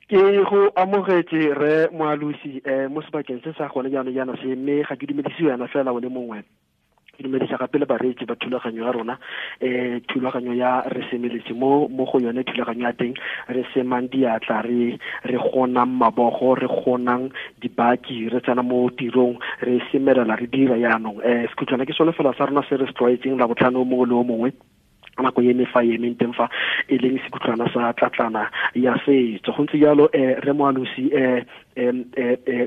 Ke go amogetse re Moalosi mo sebakeng se sa gone jaanong jaana se, mme ga ke dumedise wena fela o le mongwe, ke dumedisa gape le bareetsi ba thulaganyo ya rona, thulaganyo ya re semeletse mo go yone thulaganyo ya teng re semang diatla, re gonang mabogo, re gonang dibaki, re tsena mo tirong, re semelela, re dira jaanong. Sekhutlwana ke sone fela sa rona se re se tlwaetseng la botlhano mongwe le o mongwe nako e fa e emeng teng fa e leng sekhutlwana sa tlatlana ya setso. Go ntse jalo re Moalosi,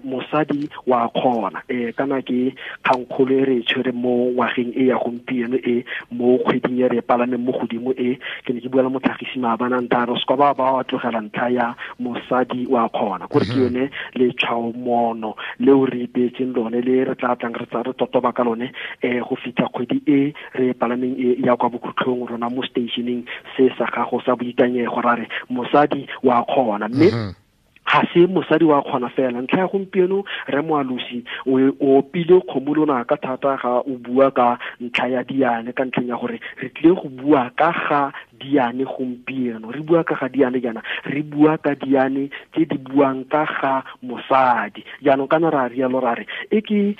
mosadi wa kgona, kana ke kgangkgolo e re e tshwere mo ngwageng e ya gompieno e mo kgweding e re e palameng mo godimo e. Ke ne ke bua le motlhagisi maabane a ntha re se kwa ba tlogela ntlha ya mosadi wa kgona, kore ke yone letshwaomono leo re ipeetseng lone le re tla tlang re tsa re totoba ka lone go fitlha kgwedi e re palameng e ya kwa bokhutlhong rona mo stationeng se sa gago sa boikanyego, ra re mosadi wa kgona. Mme ga se mosadi wa kgona fela, ntlha ya gompieno re Moalosi o opile kgomo lona ka thata ga o bua ka ntlha ya diane, ka ntlheng ya gore re tlile go bua ka ga diane gompieno. Re bua ka ga diane jaana, re bua ka diane tse di buang ka ga mosadi. Jaanong kana ra rialo ra re e ke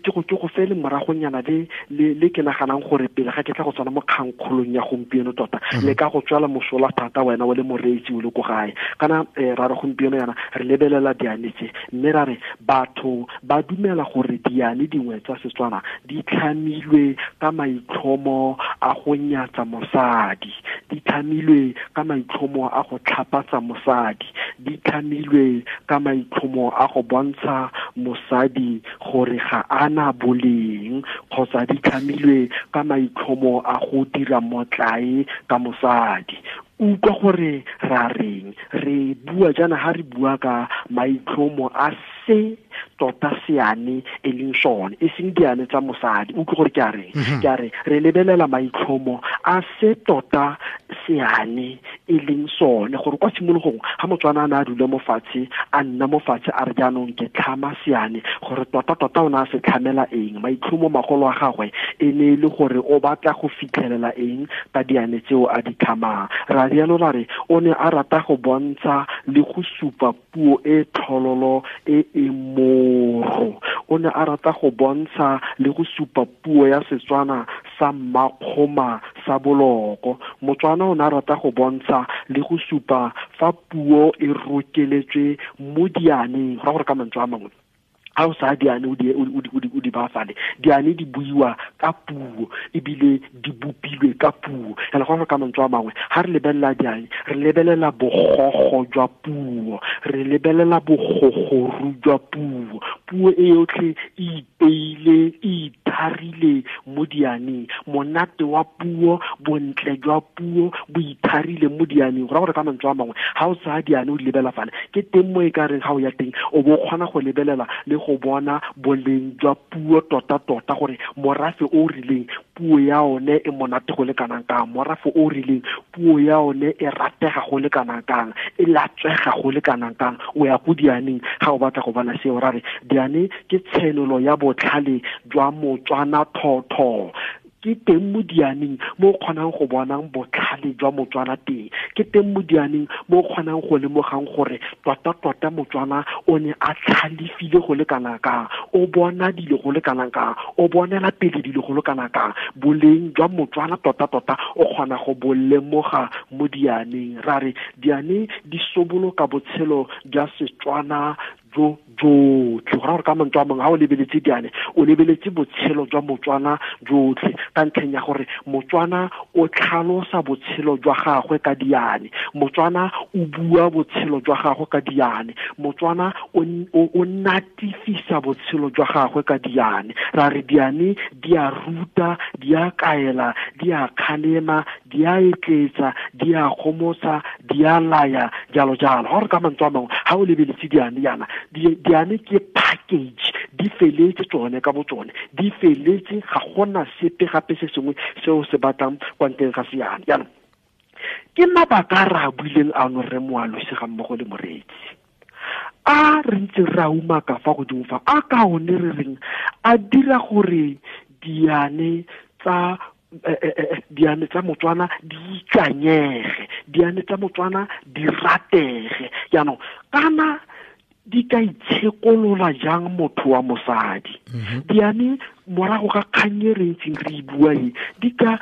go fele moragonyana le ke naganang gore pele ga ke tla go tsena mo kgangkgolong ya gompieno tota le ka go tswala mosola thata wena o le moreetsi o le ko gae. Kana ra re gompieno yana re lebelela diane tse, mme ra re batho ba dumela gore diane dingwe tsa Setswana di tlhamilwe ka maitlhomo a go nyatsa mosadi, di tlhamilwe ka maitlhomo a go tlhapatsa mosadi, di tlhamilwe ka maitlhomo a go bontsha mosadi gore ga ana boleng, kgotsa di tlhamilwe ka maitlhomo a go dira motlae ka mosadi. Utlwa gore ra reng, re bua jaana ha re bua ka maitlhomo a se tota seane e leng sone, e seng diane tsa mosadi. Utlwa gore ke a reng, ke a re re lebelela maitlhomo a se tota seane e leng sone, gore kwa tshimologong ga Motswana a ne a dula mo fatshe, a nna mo fatshe a re jaanong ke tlhama seane, gore tota tota o ne a se tlhamela eng, maitlhomo magolo a gagwe e ne e le gore o batla go fitlhelela eng ka diane tseo a di tlhamang. Ra rialo ra re o ne a rata go bontsha le go supa puo e tlhololo e e moro, o ne a rata go bontsha le go supa puo ya Setswana sa mmakgoma sa boloko. Motswana o ne a rata go bontsha le go supa fa puo e rokeletswe mo dianeng, go ra gore ka mantswe a mangwe ha o sa diane o di bafale, diane di buiwa ka puo ebile di bopilwe ka puo. Ela go ka mantswe a mangwe ha re lebelela diane, re lebelela bogogo jwa puo, re lebelela bogogoru jwa puo. Puo e yotlhe e ipeile, e itharile mo dianeng, monate wa puo, bontle jwa puo bo itharile mo dianeng. Go ra gore ka mantswe a mangwe ha o tsaya diane o di lebela fale, ke teng mo e ka reng ha o ya teng o bo kgona go lebelela le go bona boleng jwa puo tota tota, gore morafe o rileng puo ya one e monate go le kanang kang, morafe o rileng puo ya one e ratega go le kanang kang, e latswega go le kanang kang. O ya go dianeng ga o batla go bona seo. Ra re diane ke tshenolo ya botlhale jwa Motswana thotho, ke teng mo dianeng mo o kgonang go bonang botlhale jwa Motswana teng, ke teng mo dianeng mo o kgonang go lemogang gore tota tota Motswana o ne a tlhalefile go le kana kang, o bona dilo go le kana kang, o bonela pele dilo go le kana kang. Boleng jwa Motswana tota tota o kgona go bo lemoga mo dianeng. Ra re diane di soboloka botshelo jwa Setswana jo jotlhe. Go ra gore ka mantswe a mangwe ha o lebeletse diane, o lebeletse botshelo jwa Motswana jotlhe, ka ntlheng ya gore Motswana o tlhalosa botshelo jwa gagwe ka diane, Motswana o bua botshelo jwa gagwe ka diane, Motswana o natifisa botshelo jwa gagwe ka diane. Ra re diane di a ruta, di a kaela, di a kgalema, di a etletsa, di a gomotsa, di a laya, jalo jalo. Ga gore ka mantswe a mangwe ha o lebeletse diane yana, diane ke package, di feletse tsone ka botsone, di feletse, ga gona sepe gape se sengwe seo se batlang kwa ntleng ga seane. Jaanong ke mabaka a re a buileng ano re Moalosi ga mmogo le moreetsi, a re ntse re a umaka fa godimo fa, a ka one re reng a dira gore diane tsa Diane tsa Motswana di ikanyege, diane tsa Motswana di ratege. Jaanong kana di ka itshekolola jang motho wa mosadi? Diane morago ga kgang e re ntseng re e bua e, di ka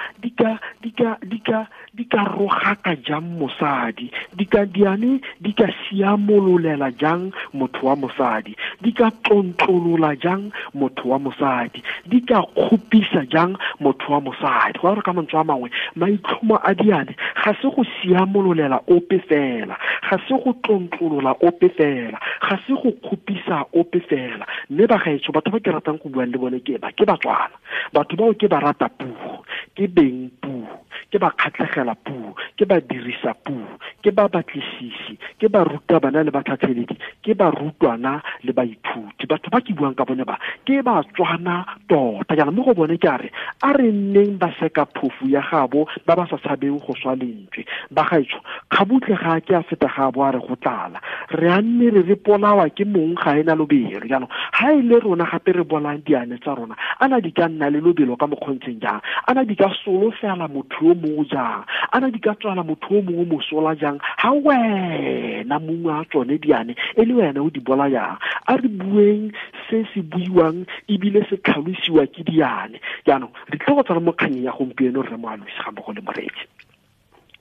rogaka jang mosadi? Diane di ka siamololela jang motho wa mosadi? Di ka tlontlolola jang motho wa mosadi? Di ka kgopisa jang motho wa mosadi? Go gore ka mantswe a mangwe, maitlhomo a diane ga se go siamololela ope fela, ga se go tlontlolola ope fela, ga se go kgopisa ope fela. Mme bagaetsho, batho ba ke ratang go buang le bone ke ba, ke Batswana. Batho bao ke ba rata puo, ke beng puo, ke ba kgatlhegela puo, ke ba dirisa puo, ke ba batlisisi, ke ba ruta bana le batlhatlheledi, ke ba rutwana le baithuti. Batho ba ke buang ka bone ba ke Batswana tota. Jaana mo go bone ke a re, a re nneng ba seka phofu ya gabo ba ba sa tshabeng go swa lentswe. Bagaetsho, kgabutle ga ke a feta ga bo a re go tlala, re a nne re re polawa ke mong ga ena lobelo. Jaanong ga e le rona gape re bolang diane tsa rona, ana di ka nna le lobelo ka mokgontseng jang? Ana di ka solofela motho yo mongwe jang? Ana di ka tswala motho yo mongwe mosola jang, ga wena mongwe a tsone diane e le wena o di bolayang? A re bueng se se buiwang ebile se tlhalosiwa ke diane. Jaanong re tle go tsena mo kganyeng ya gompieno, rre Moalosi ga mmogo le moreetsi.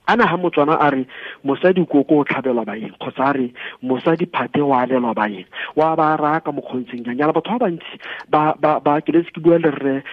Ana ha Motswana a re mosadi koko o tlhabelwa baeng, kgotsa a re mosadi phate o alelwa baeng, wa ba raya ka mokgontseng jang? Jaana batho ba bantsi ba ke letse ke bua le rre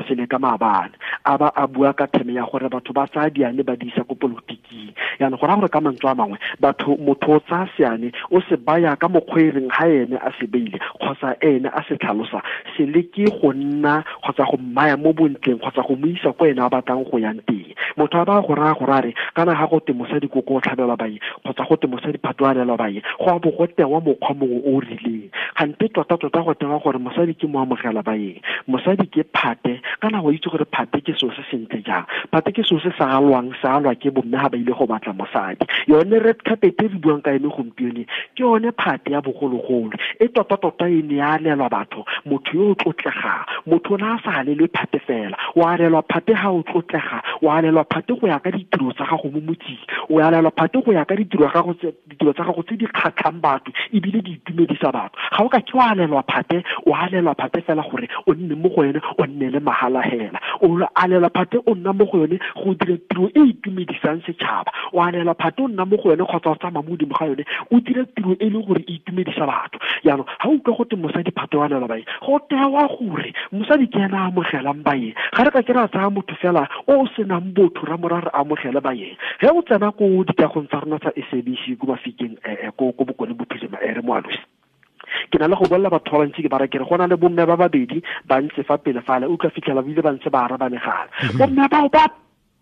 sele ka maabane, a ba a bua ka theme ya gore batho ba tsaya diane ba di isa ko politiking. Jaanong go raya gore ka mantswe a mangwe, batho, motho o tsaya seane o se baya ka mokgwa e reng ga ene a se beile kgotsa ene a se tlhalosa, se leke go nna kgotsa go mmaya mo bontleng kgotsa go mo isa ko ene a batlang go yang teng. Motho a ba go raya gore a re kana ga go te mosadi koko o tlhabelwa baeng kgotsa go te mosadi phato a alelwa baeng, go a bo go tewa mokgwa mongwe o o rileng. Gante tota-tota go tewa gore mosadi ke mo amogela baeng, mosadi ke phate. Kana go itse gore phate ke selo se sentle jang? Phate ke selo se sa alwang, se alwa ke bomme ga ba ile go batla mosadi. Yone red carpet e re buang ka ene gompieno ke yone phate ya bogologolo e tota-tota e ne ya alelwa batho, motho yo o tlotlegang. Motho o ne a sa alelwe phate fela, o alelwa phate ga o tlotlega, o alelwa phate go ya ka ditiro tsa gago mo motseng, o alelwa phate go ya ka ditiro gago, ditiro tsa gago tse di kgatlhang batho ebile di itumedisa batho. Ga o ka ke wa alelwa phate, o alelwa phate fela gore o nne mo go yone, o nne le mahala hela. O alelwa phate o nna mo go yone go dira tiro e itumedisang setšhaba. O alelwa phate o nna mo go yone kgotsa o tsamaya mo godimo ga yone o dira tiro e leng gore e itumedisa batho. Jaanong ga utlwa gote mosadi phate o alelwa baeng, go tewa gore mosadi ke ena a amogelang baeng. Ga re ka ke ra tsaya motho fela o o senang botho ra mora re amogele baeng. Ge o tsena ko dikagong tsa rona tsa SABC ko Mafikeng, ko Bokone Bophirima, re Moalosi, ke na le go bolela batho ba bantsi, ke bara ke re go na le bomme ba babedi ba ntse fa pele fale, o tla fitlhela bile ba ntse ba araba megala. Bomme bao ba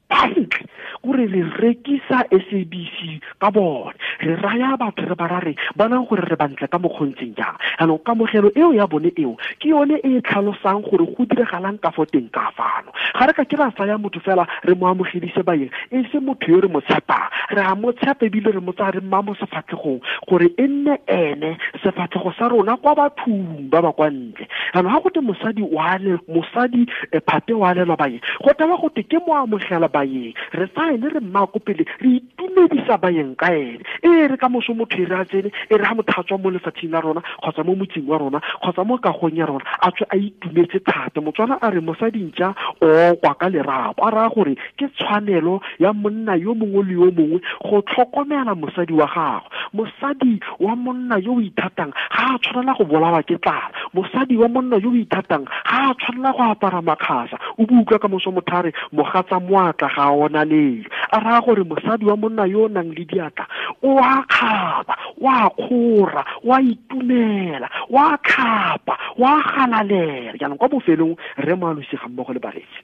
bantle kore re rekisa SABC ka bone, re raya batho re ba ra re bonang gore re bantle ka mokgontseng jang. Jaanong kamogelo eo ya bone eo ke yone e e tlhalosang gore go diragalang ka fo teng ka fano. Ga re ka ke ra tsaya motho fela re mo amogedise baeng e se motho yo re mo tshepang. Re a mo tshepa ebile re mo tsaya re mma mo sefatlhegong gore e nne ene sefatlhego sa rona kwa bathong ba ba kwa ntle. Jaanong ga gote mosadi wa mosadi phate wa alelwa baeng, go tewa gote ke mo amogela baeng. Re tsaya ene re mma ko pele, re itumedisa baeng ka ene. E re ka moso motho e re a tsene, e re ga motho a tswa mo lefatsheng la rona kgotsa mo motseng wa rona kgotsa mo kagong ya rona, a tswe a itumetse thata. Motswana a re mosadi ntša o kwa ka lerapo, a raya gore ke tshwanelo ya monna yo mongwe le yo mongwe go tlhokomela mosadi wa gagwe. Mosadi wa monna yo o ithatang ga a tshwanela go bolawa ke tlala. Mosadi wa monna yo o ithatang ga a tshwanela go apara makgasa. O bo utlwa ka moso motho a re mogatsa moatla ga a ona lelo, a raya gore mosadi wa monna yo o nang le diatla o a kgaba, o a kgora, o a itumela, o a tlhapa, o a galalela. Jaanong kwa bofelong, re Moalosi ga mmogo le baretsi,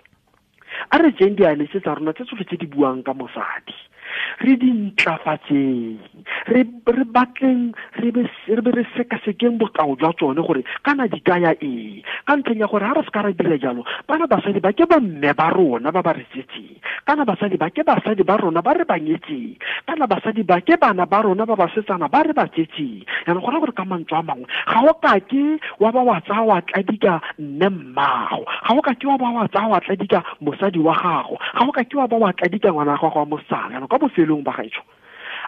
a re jeng diane tse tsa rona tse tsotlhe tse di buang ka mosadi. Re di ntlafatseng, re batleng, re be re sekasekeng bokao jwa tsone gore kana di kaya eng. Ka ntlheng ya gore ga re se ka ra dira jalo, bana basadi ba ke bomme ba rona ba ba re tsetseng, kana basadi ba ke basadi ba rona ba re ba nyetseng, kana basadi ba ke bana ba rona ba basetsana ba re ba tsetseng. Jaanong go raya gore ka mantswe a mangwe, ga o kake wa ba wa tsaya wa tladika mme mmago, ga o kake wa ba wa tsaya wa tladika mosadi wa gago, ga o kake wa ba wa tladika ngwana wa gago wa mosetsana. Jaanong kwa bofelong ba gaetsho,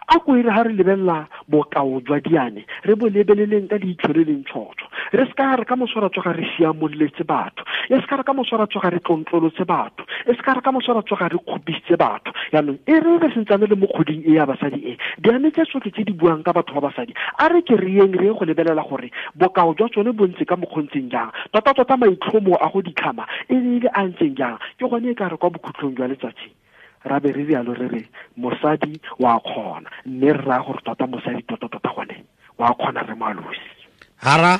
a ko ere ga re lebelela bokao jwa diane, re bo lebeleleng ka leitlho le leng tshotshwo. Re se ka re ka moso ra tsoga re siamololetse batho, e se ka re ka moso ra tsoga re tlontlolotse batho, e se ka re ka moso ra tsoga re kgopisitse batho. Jaanong e re re sentsane le mo kgoding e ya basadi e, diane tse tsotlhe tse di buang ka batho ba basadi, a re ke re yeng re ye go lebelela gore bokao jwa tsone bo ntse ka mokgontseng jang, tota-tota maitlhomo a go ditlhama e ne e le a ntseng jang. Ke gone e ka re kwa bokhutlong jwa letsatsi ra be re rialo re re mosadi wa kgona, mme re raya gore tota mosadi tota-tota gone wa kgona re moalosi. Hara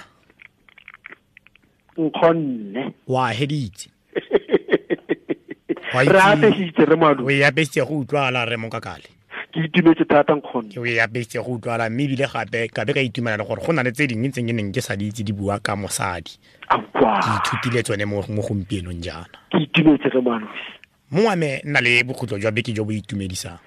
nkgonne wa heditse. Re apesitse re moalosi. O e apesitse go utlwala re mokakale. Ke itumetse thata nkgonne. Ke o e apesitse go utlwala, mme ebile gape ka be ka itumela le gore go na le tse dingwe tse ke neng ke sa di itse di bua ka mosadi. Aowa. Ke ithutile tsone mo gompienong jaana. Ke itumetse re moalosi. Mongwe wa me nna le bokhutlo jwa beke jo bo itumedisang.